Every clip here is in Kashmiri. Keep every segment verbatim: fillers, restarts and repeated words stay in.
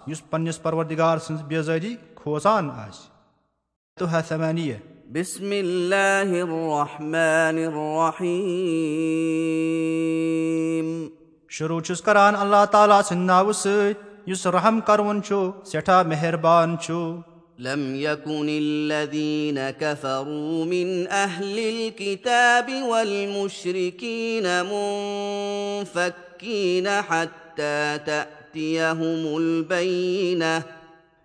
یُس پننِس پروردگار سٕنٛز بیزٲری کھوژان آسہِ۔ تہٕ ثمانیہ۔ بسم اللہ الرحمن الرحیم۔ شروع چھُس کران اللہ تعالیٰ سٕنٛدِ ناوٕ سۭتۍ، یُس رحم کرون چھُ، سٮ۪ٹھاہ مہربان چھُ۔ لم يكن الذين كفروا من أهل الكتاب والمشركين منفكين حتى تأتيهم البينة۔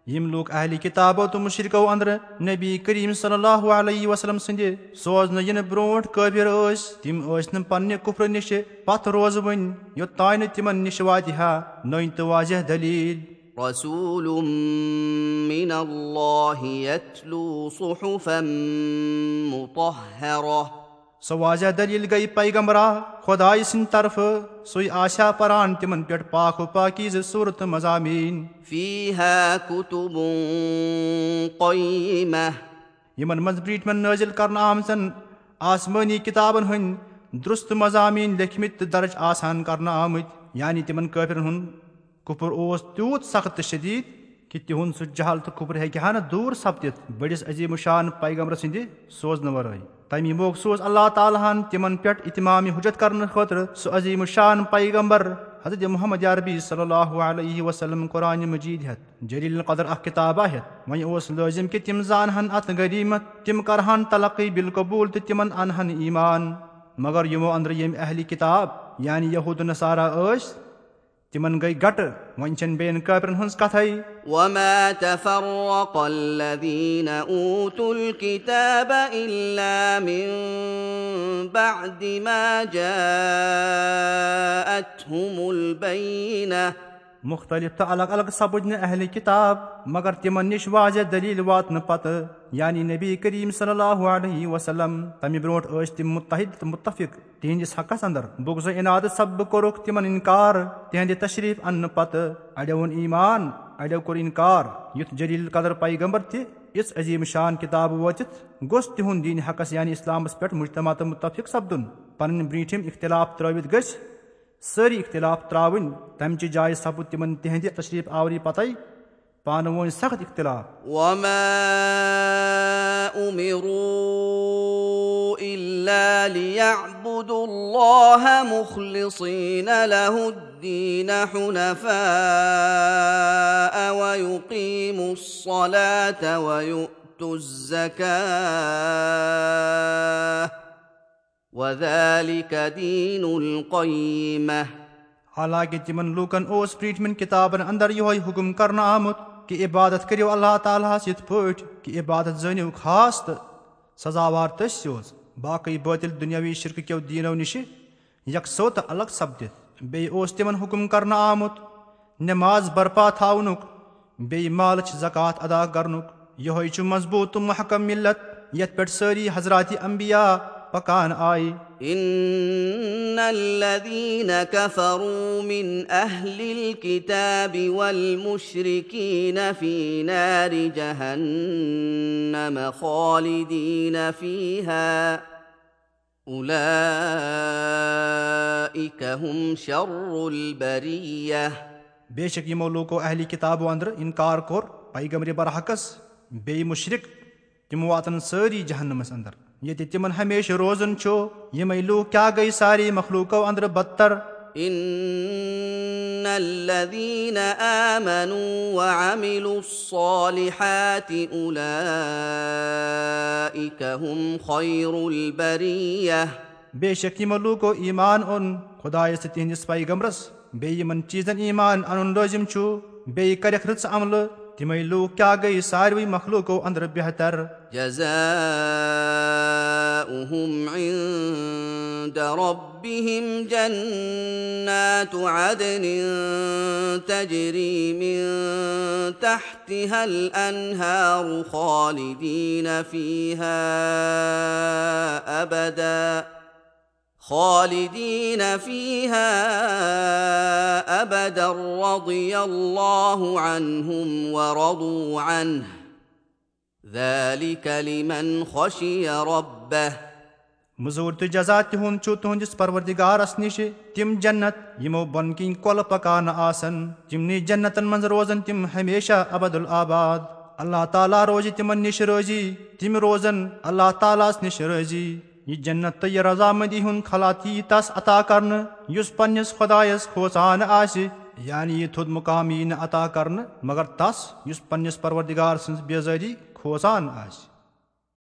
یِم لوٗکھ اہلِ کِتابو تہٕ مُشرِکو اندرٕ نبی کریم صلی اللہ علیہ وسلم سٕنٛدِ سوزنہٕ یِنہٕ برونٛٹھ کٲفِر ٲسۍ، تِم ٲسۍ نہٕ پننہِ کُفرٕ نِشہِ پتھ روزوٕنۍ، یوٚتام نہٕ تِمن نِش واتہِ ہا نٔنۍ تہٕ واضح دلیل۔ رسول من الله يتلو صحفا مطهرة۔ سۄ واضح دلیل گٔیہِ پیغمبرا خۄدایہِ سٕنٛدِ طرفہٕ، سُے آسہِ ہا پران تِمن پٮ۪ٹھ پاک و پاکیزٕ سورتہٕ مضامین۔ فيها كتب قيمة۔ یِمن منٛز برٛونٛٹھمٮ۪ن نٲزِل کرنہٕ آمژن آسمٲنی کِتابن ہٕنٛدۍ درست مضامین لیکھمٕتۍ تہٕ درج آسان کرنہٕ آمٕتۍ، یعنی تِمن کٲفرن ہُنٛد کُفر اوس تیوٗت سخت تہٕ شدید کہِ تِہُنٛد سُہ جہل تہٕ کُفر ہیٚکہِ ہا نہٕ دوٗر سپدِتھ بٔڑِس عظیم الشان پیغمبر سٕنٛدِ سوزنہٕ ورٲے۔ تَمی موقعہٕ سوز اللہ تعالیٰ ہن تِمن پٮ۪ٹھ اتمام حجت کرنہٕ خٲطرٕ سُہ عظیم الشان پیغمبر حضرت محمد عربی صلی اللہ علیہ وسلم قرآن مجید ہٮ۪تھ، جلیل القدر اکھ کِتابہ ہٮ۪تھ۔ وۄنۍ اوس لٲزم کہِ تِم زانہن اتھ غنیمت، تِم کرہن تلقی بالقبول تہٕ تِمن انہن ایمان۔ مگر یِمو اندرٕ ییٚمۍ اہلِ کِتاب یعنی یہود و نصارہ ٲسۍ، تِمن گٔے گٹہٕ، وۄنۍ چھَنہٕ بیٚین کٲفرن ہٕنٛز کتھے۔ وما تفرق الذين أوتوا الكتاب إلا من بعد ما جاءتهم البينة۔ مختلف تہٕ الگ الگ سپٕدۍ نہٕ اہلِ کِتاب مگر تِمن نِش واضح دلیل واتنہٕ پتہٕ، یعنی نبی کریم صلی اللہ علیہ وسلم۔ تمہِ برونٛٹھ ٲسۍ تِم متحد تہٕ متفق تِہنٛدِس حقس اندر۔ بغض و عنادٕ سببہٕ کوٚرُکھ تِمن انکار تِہنٛدِ تشریف اننہٕ پتہٕ۔ اڑیو اوٚن ایمان، اڑیو کوٚر انکار۔ یُتھ جلیل القدر پیغمبر تہِ یِژھ عظیم شان کتاب وٲتِتھ گوٚژھ تِہُنٛد دین حقس یعنی اسلامس پٮ۪ٹھ مجتمع تہٕ متفق سپدُن۔ پنٕنۍ برٛونٛٹھِم اختلاف ترٲوِتھ گٔژھۍ سٲری اختلاف ترٛاوٕنۍ۔ تمہِ چہِ جایہِ سپُد تِمن تِہنٛدِ تشریف آوری پتے پانہٕ وٲنۍ سخت اختلاف۔ وما أمروا إلا ليعبدوا الله مخلصين له الدين حنفاء ويقيموا الصلاة ويؤتوا الزكاة وذلك دين القيمة۔ حالانکہ تِمن لوٗکن اوس برٛونٛٹھمٮ۪ن کِتابن اندر یِہوٚے حُکم کرنہٕ آمُت کہِ عبادت کٔرِو اللہ تعالیٰ ہس یِتھ پٲٹھۍ کہِ عبادت زٲنِو خاص تہٕ سزاوار تٔسۍ یوت، باقٕے بٲطِل دُنیاوی شرکہٕ کیو دیٖنو نِشہِ یکسو تہٕ الگ سپدِتھ۔ بیٚیہِ اوس تِمن حُکم کرنہٕ آمُت نماز برپا تھاونُک، بیٚیہِ مالٕچ زکوٰۃ ادا کرنُک۔ یِہوٚے چھُ مضبوٗط تہٕ محکم ملت یتھ پٮ۪ٹھ سٲری حضرات انبیاء پکان آیہِ۔ إن الذين كفروا من أهل الكتاب والمشركين في نار جهنم خالدين فيها أولئك هم شر البرية۔ بے شک یِمو لوٗکو اہلِ کِتابو اندرٕ انکار کوٚر پیغمبر برحقس، بیٚیہِ مُشرِک، تِم واتن سٲری جہنمس اندر، ییٚتہِ تِمن ہمیشہٕ روزُن چھُ۔ یِمے لوٗکھ کیٛاہ گٔے سارے مخلوٗقو اندرٕ بدتر؟ إن الذين آمنوا وعملوا الصالحات أولئك هم خير البرية۔ بے شک یِمو لوٗکو ایمان اوٚن خۄدایس تہٕ تِہنٛدِس پیغمبرس، بیٚیہِ یِمن چیٖزن ایمان انُن لٲزم چھُ، بیٚیہِ کرکھ رٕژ عملہٕ، تِمے لوٗکھ کیٛاہ گٔے ساروٕے مخلوٗقو اندرٕ بہتر؟ جزاؤهم عند ربهم جنات عدن تجري من تحتها الأنهار خالدين فيها أبدا خالدين فيها أبدا رضي الله عنهم ورضوا عنه ذلك لمن خشي ربه مزوٗرۍ تہٕ جزا تِہُنٛد چھُ تُہنٛدِس پروردگارس نِش تِم جنت، یِمو بۄنہٕ کِنۍ کۄلہٕ پکان آسن۔ تِمنٕے جنتن منٛز روزن تِم ہمیشہ ابد الآباد۔ اللہ تعالیٰ روزِ تِمن نِش رٲضی، تِم روزن اللہ تعالیٰ ہس نِش رٲضی۔ یہِ جنت تہٕ یہِ رضامندی ہُنٛد خلعت یی تس عطا کرنہٕ، یُس پننِس خۄدایس کھوژان آسہِ، یعنی یہِ تھوٚد مقام یی نہٕ عطا کرنہٕ مگر تس، یُس پننِس پروردگار سٕنٛز بیزٲری کھوژان آسہِ۔